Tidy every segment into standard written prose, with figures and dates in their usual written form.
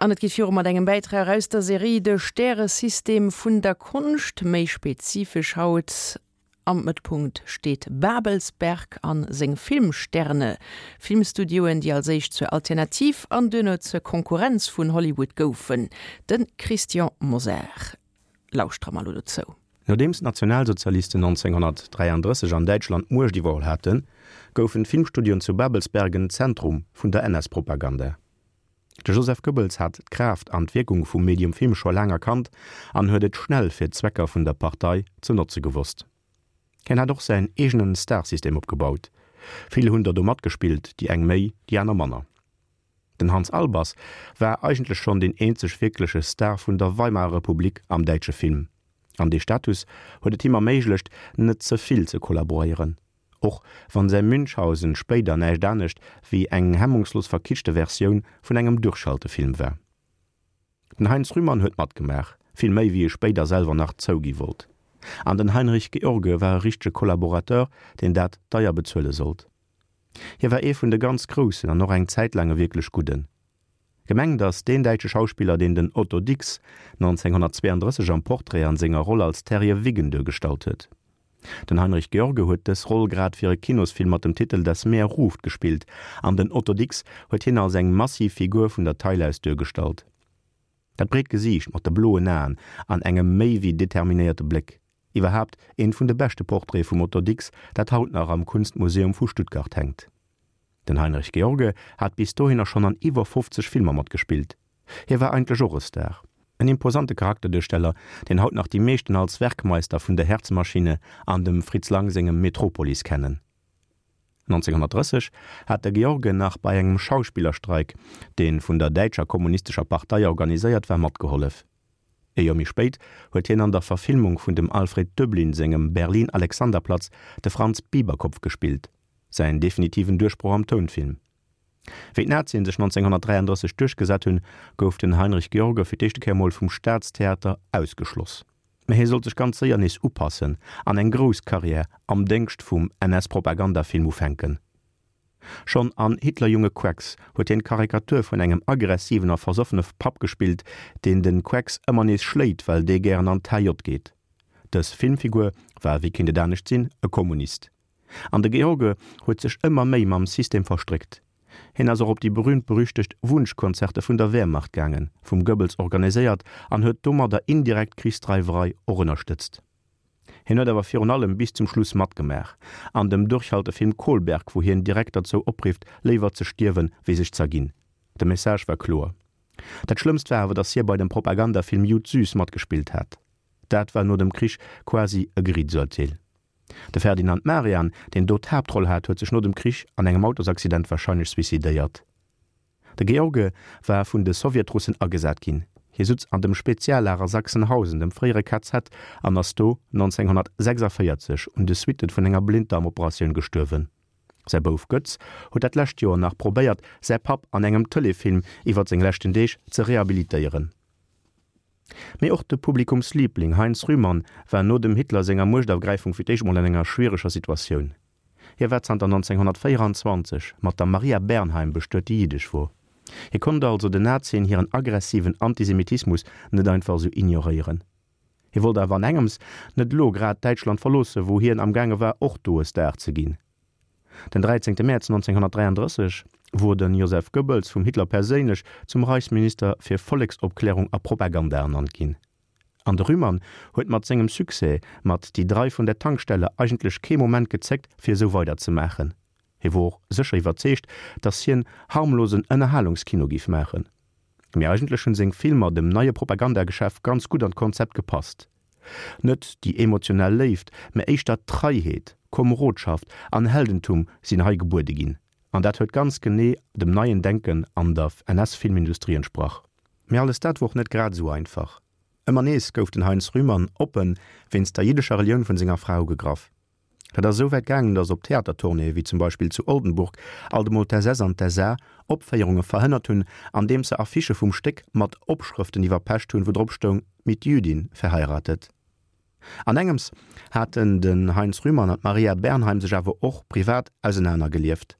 An et geet viru mat engem Bäitrag aus der Serie De Stäresystem vun der Konscht. Méi spezifesch haut, Am Mëttpunkt steet Babelsberg a seng Filmsterne. Filmstudioen, déi als éischt zur Alternativ an duerno zur Konkurrenz vun Hollywood goufen. De Christian Mosar lauschtere mer elo dozou. Nodeems d'Nationalsozialisten 1933 an Däitschland d'Muecht iwwerholl haten, goufen d'Filmstudioen zu Babelsberg en Zentrum vun der NS-Propaganda. De Joseph Goebbels hat d'Kraaft an d'Wierkung vum Medium Film scho laang erkannt an huet et schnell fir d'Zwecker vun der Partei ze notze gewosst. Hien hat och säin eegenen Starsystem opgebaut. Vill hunn der do matgespillt, déi eng méi, déi aner manner. Den Hans Albers war eigentlech schonn deen eenzeg wierkleche Star vun der Weimarer Republik am däitsche Film, an dee Status huet et him erméiglecht, net ze vill ze kollaboréieren, och wann säi Münchhausen spéider näischt anescht wéi eng hemmungslos verkitschte Versioun vun engem Durchhaltefilm war. Den Heinz Rühmann huet matgemaach, vill méi wéi e spéider selwer nach zougi wollt. An den Heinrich George war e richtege Kollaborateur, deen dat deier bezuele sollt. Hie war ee vun de ganz Groussen an och eng Zäit laang e wierklech Gudden. Gemengt ass deen däitsche Schauspiller, deen den Otto Dix 1932 am Portrait an senger Roll als Terje Wiggen duergestallt huet. Den Heinrich George huet dës Roll grad fir e Kinosfilm mat dem Titel Das Meer ruft gespillt an den Otto Dix huet hien als eng massiv Figur vun der Taille aus duergestallt. Dat breet Gesiicht mat de bloen Aen an engem méi wéi determinéierte Bléck. Iwwerhaapt eent vun de beschte Portraite vum Otto Dix, dat haut nach am Kunstmuseum vu Stuttgart hänkt. Den Heinrich George hat bis dohinner schonn an iwwer 50 Filmer matgespillt. Hie war eigentlech och e Star. En imposante Charakterduersteller, deen haut nach déi meeschten als Werkmeister vun der Herzmaschine an dem Fritz Lang sengem Metropolis kennen. 1930 hat de George nach bei engem Schauspillerstreik, dee vun der däitscher kommunistescher Partei organiséiert war, matgehollef. E Joer méi spéit huet hien an der Verfilmung vun dem Alfred Döblin sengem Berlin Alexanderplatz de Franz Biberkopf gespillt, säin definitiven Duerchbroch am Tounfilm. Wéi d'Nazien sech 1933 duerchgesat hunn, gouf den Heinrich George fir d'éischte Kéier mol vum Staatstheater ausgeschloss. Mä hie sollt sech ganz séier nees upassen an eng grouss Karriär am Déngscht vum NS-Propagandafilm ufänken. Schonn an Hitlerjunge Quacks huet hien d'Karikatur vun engem aggressiven a versoffene Papp gespillt, deen de Quacks ëmmer nees schléit, well dee gären an d'HJ geet. Dës Filmfigur war, wéi kéint et anescht sinn, e Kommunist. An de George huet sech ëmmer méi mam System verstréckt. Hien ass och op déi berühmt-berüchtegt Wunschkonzerte vun der Wehrmacht gaangen, vum Goebbels organiséiert, an huet domadder indirekt d'Krichsdreiwerei och ënnerstëtzt. Hien huet awer virun allem bis zum Schluss matgemaach an dem Durchhaltefilm Kolberg, wou hien direkt derzou oprifft, léiwer ze stierwen, wéi sech z'erginn. De Message war kloer. Dat Schlëmmst war awer, datt hie bei dem Propagandafilm Jud Süß matgespillt hat. Dat war no dem Krich quasi e Geriitsurteel. De Ferdinand Marian, deen do d'Haaptroll hat, huet sech no dem Krich an engem Autosaccident warscheinlech suicidéiert. De George war vun de Sowjetrussen agesat ginn. Hie sutz an dem Speziallager Sachsenhausen, dem fréiere KZ, an ass do 1946 un de Suitte vun enger Blinddarmoperatioun gestuerwen. Säi Bouf Götz huet dat lescht Joer nach probéiert, säi Papp an engem Tëleefilm iwwer seng leschten Deeg ze rehabilitéieren. Mee och de Publikumsliibling Heinz Rühmann war no dem Hitler senger Muechtergräifung fir d'éischt mol an enger schwiereger Situatioun. Hie war zanter 1924 mat der Maria Bernheim bestuet, déi jiddesch wor. Hie konnt also den Nazien hiren aggressiven Antisemitismus net einfach esou ignoréieren. Hie wollt awer an engems net elo grad Däitschland verloossen, wou hien am gaange war och do e Star ze ginn. Den 13 Mäerz 1933 wor de Joseph Goebbels vum Hitler perséinlech zum Reichsminister fir Volleksopklärung a Propaganda ernannt ginn. An de Rühmann huet mat sengem Succès mat Die drei von der Tankstelle eigentlech kee Moment gezéckt fir esou weider ze maachen. Hie wor och sécher iwwerzeegt, datt hien harmlosen Ënnerhalungskino giff maachen. Mee eigentlech hunn seng Filmer dem neie Propagandageschäft ganz gutt an d'Konzept gepasst. Net déi emotional Léift, mä éischter Treiheet, Komerodschaft an Heldentum sinn hei gebuede ginn. An dat huet ganz genee dem neien Denken an der NS-Filmindustrie entsprach. Mee alles dat wor och net grad esou einfach. Ëmmer nees gouf den Heinz Rühmann oppe wéinst der jiddescher Relioun vun senger Fra ugegraff. Dat ass esou wäit gaangen, datt op Theatertournéeë wéi zum Beispill zu Oldenburg alt emol d'SS an d'SA Opféierunge verhënnert hunn, andeems se Affichë vum Stéck mat Opschrëften iwwerpecht hunn, wou drop stoung Mit Jüdin verheiratet. An engems haten den Heinz Rühmann an d'Maria Bernheim sech awer och privat ausenanergelieft.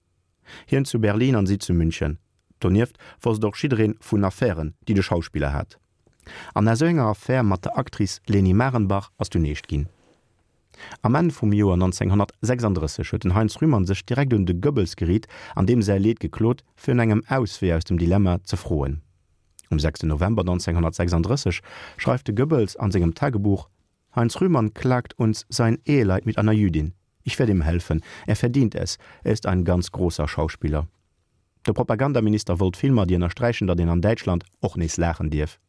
Hien zu Berlin an si zu München. Donieft wosst och jiddereen vun Affären, déi de Schauspiller hat. An aus esou enger Affär mat der Actrice Leni Marenbach ass dunn eescht ginn. Am Enn vum Joer 1936 huet den Heinz Rühmann sech direkt un de Goebbels geriit an deem säi Leed geklot, fir no engem Auswee aus dem Dilemma ze froen. Um 6 November 1936 schreift de Goebbels an sengem Tagebuch, Heinz Rühmann klagt uns sein Eheleid mit einer Jüdin. Ich werde ihm helfen. Er verdient es. Er ist ein ganz großer Schauspieler. De Propagandaminister wollt Filmer, déi ënnersträichen, datt een an Däitschland och nees laachen dierf.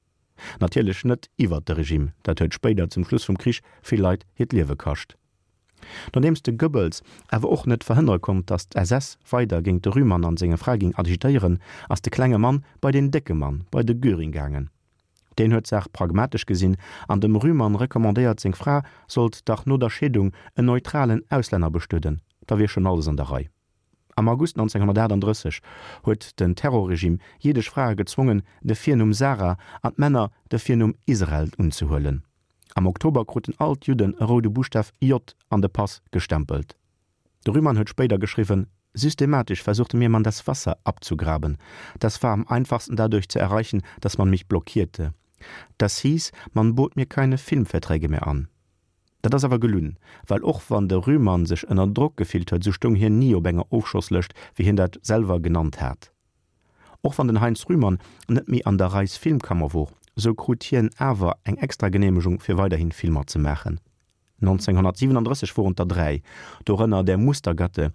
Natierlech net iwwert de Regime, dat huet spéider zum Schluss vum Krich vill Leit hiert Liewe kascht. Nodeems de Goebbels awer och net verhënnere konnt, datt d'SS weider géint de Rühmann an senge Fra ging agitéieren, ass de klenge Mann bei den décke Mann, bei de Göring gaangen. Deen huet d'Saach pragmatesch gesinn an dem Rühmann recommandéiert, seng Fra sollt dach no der Scheedung en neutralen Auslänner bestueden, da wier schonn alles an der Rei. Am August 1938 huet den Terrorregime jiddesch Frae gezwongen, de Virnumm Sarah an d'Männer de Virnumm Israel unzehuelen. Am Oktober kruten all d'Judden e roude Buschtaf J an de Pass gestempelt. De Rühmann huet spéider geschriwwen, Systematisch versuchte mir man das Wasser abzugraben. Das war am einfachsten dadurch zu erreichen, dass man mich blockierte. Das hieß, man bot mir keine Filmverträge mehr an. Dat ass awer gelunn, well och wann de Rühmann sech ënner Drock gefillt huet, sou stoung hien ni op enger Ofschosslëscht, wéi hien dat selwer genannt hat. Och wann den Heinz Rühmann net méi an der Reichsfilmkammer wor, sou krut hien awer eng extra Geneemegung fir weiderhin Filmer ze maachen. 1937 woren et der 3, dorënner Der Mustergatte,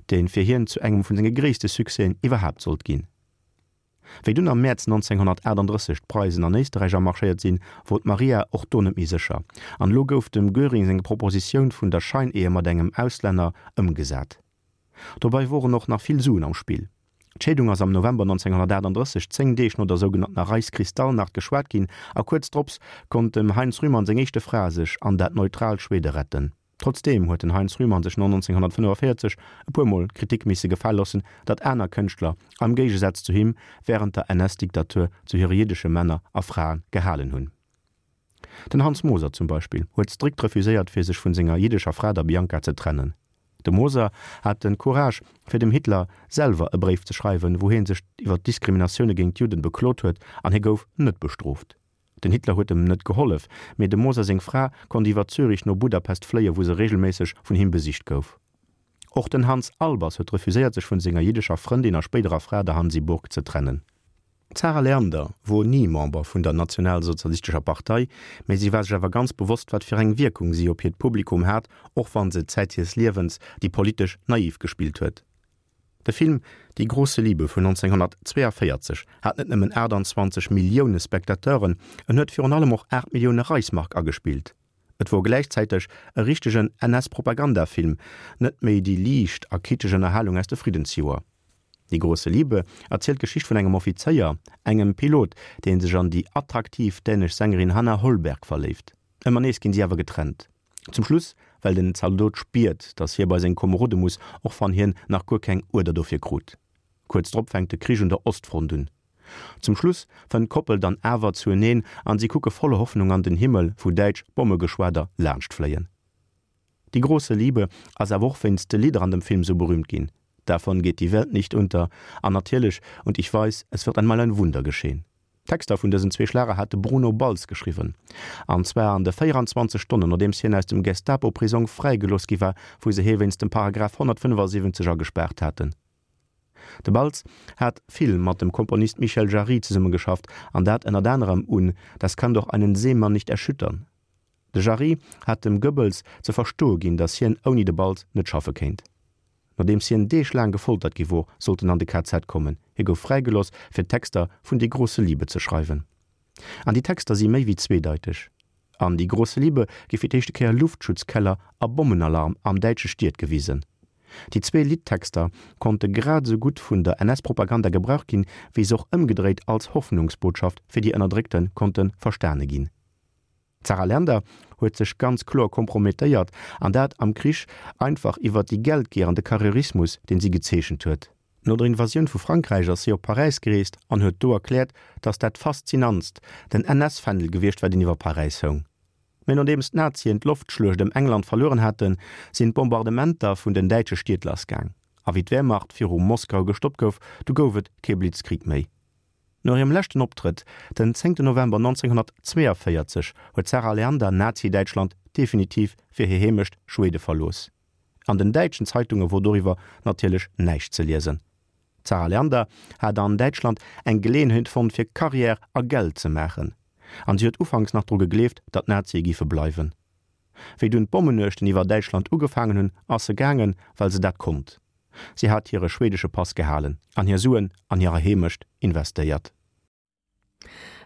dee fir hien zu engem vun senge gréisste Succèsen iwwerhaapt sollt ginn. Wéi dunn am Mäerz 1938 d'Preisen an Éisterräich amarschéiert sinn, wor d'Maria och do net méi sécher, an elo gouf dem Göring seng Propositioun vun der Scheinehe mat engem Auslänner ëmgesat. Dobei woren och nach vill Suen am Spill. D'Scheedung ass am November 1938, 10 Deeg no der sougenanntener Reichskristallnacht, geschwat ginn, a kuerz drops konnt dem Heinz Rühmann seng éischte Fra sech an dat neutraalt Schwede retten. Trotzdeem huet den Heinz Rühmann sech no 1945 e puer Mol d'Kritik misse gefale loossen, datt aner Kënschtler, am Géigesaz zu him, wärend der NS-Diktatur zu hire jiddesche Männer a Frae gehalen hunn. Den Hans Moser zum Beispill huet strikt refuséiert fir sech vun senger jiddescher Fra, der Bianca, ze trennen. De Moser hat den Courage fir dem Hitler selwer e Bréif ze schreiwen, wou hie sech iwwer d'Diskriminatioune géint d'Judden beklot huet, an hie gouf net bestrooft. Den Hitler huet em net gehollef, mee dem Moser seng Fra konnt iwwer Zürich no Budapest fléie wou se regelméisseg vun him besicht gouf. Och den Hans Albers huet refuséiert sech vun senger jiddescher Frëndin a spéiderer Fra der Hansi Burg ze trennen. D'Zarah Leander wor ni Member vun der Nationalsozialistescher Partei, mee si war sech awer ganz bewosst wat fir eng Wierkung si op hiert Publikum hat, och wann se Zäit hiers Liewens déi politesch naiv gespillt huet. De Film Die große Liebe vun 1942 hat net nëmmen 28 Millioune Spectateuren, en huet virun allem och 8 Millioune Reichsmark agespillt. Et wor gläichzäiteg e richtegen NS-Propagandafilm, net méi déi liicht a kitscheg Ënnerhalung aus de Friddensjoer. Die große Liebe erzielt d'Geschicht vun engem Offizéier, engem Pilot, dee sech an déi attraktiv dänesch Sängerin Hanna Holberg verléift. Ëmmer nees ginn si awer getrennt. Zum Schluss, well den Zaldot spiert, datt hie bei seng Komerode muss, och wann hien nach guer keng Uerder dofir krut. Kuerz drop fänkt de Krich un der Ostfront un. Zum Schluss fënnt d'Koppel dann awer zueneen an si kucke voller Hoffnung an den Himmel, wou däitsch Bommegeschwader laanscht fléien. Die große Liebe ass awer och wéinst de Lidder an dem Film sou berühmt ginn, Davon geht die Welt nicht unter an natierlech Und ich weiß, es wird einmal ein Wunder geschehen. D'Texter vun dësen zwee Schlager hat de Bruno Balz geschriwwen, an zwar an de 24 Stonnen nodeems hien aus dem Gestapo-Prisong fräigelooss gi war, wou se hie wéinst dem Paragraph 175 agespaart haten. De Balz hat vill mat dem Komponist Michel Jarry zesummegeschafft, an dat ënnert anerem un Das kann doch einen Seemann nicht erschüttern. De Jarry hat dem Goebbels ze verstoe ginn, datt hien ouni de Balz net schaffe kéint. Nodeems hien Deeg laang gefoltert gi wor, sollt en an de KZ kommen. Hie gouf fräigeloss, fir d'Texter vun Die große Liebe ze schreiwen. An déi Texter si méi wéi zweedeiteg. An Die große Liebe gi fir d'éischte Kéier Luftschutzkeller a Bommenalarm am däitsche Stied gewisen. Déi zwee Liddtexter konnte grad esou gutt vun der NS-Propaganda gebraucht ginn, wéi se och ëmgedréit als Hoffnungsbotschaft fir déi Ënnerdréckte konnte verstane ginn. D'Zarah Leander huet sech ganz kloer kompromettéiert, an dat am Krich, einfach iwwert déi Geldgier an de Karrierismus, deen si gezeechent huet. No der Invasioun vu Frankräich ass si op Paräis gereest an huet do erkläert, datt dat Faszinantst den NS-Fändel gewiescht war, deen iwwer Paräis houng. Mä nodeems d'Nazien d'Loftschluecht ëm England verlueren haten, sinn d'Bombardementer vun den däitsche Stied lassgaang. A wéi d'Wehrmacht viru Moskau gestoppt gouf, du gouf et kee Blitzkrieg méi. No hirem leschten Optrëtt, den 10 November 1942, huet d'Zarah Leander Nazi-Däitschland definitiv fir hir Heemecht Schwede verlooss. An den däitschen Zeitunge wor doriwwer natierlech näischt ze liesen. D'Zarah Leander hat an Däitschland eng Geleeënheet fonnt fir Carrière a Geld ze maachen, an si huet ufanks nach dru gegleeft, datt d'Nazie géife bleiwen. Wéi dunn d'Bommenuechten iwwer Däitschland ugefaangen hunn, ass se gaangen, well se dat konnt. Si hat hire schwedesche Pass gehalen an hir Suen an hirer Heemecht investéiert.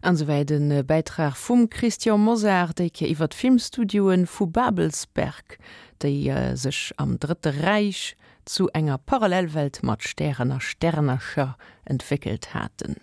An esouwäit e Bäitrag vum Christian Mosar, déi Kéier iwwer d'Filmstudioe vu Babelsberg, déi sech am Drëtte Räich zu enger Parallelwelt mat Stären a Sternercher entwéckelt haten.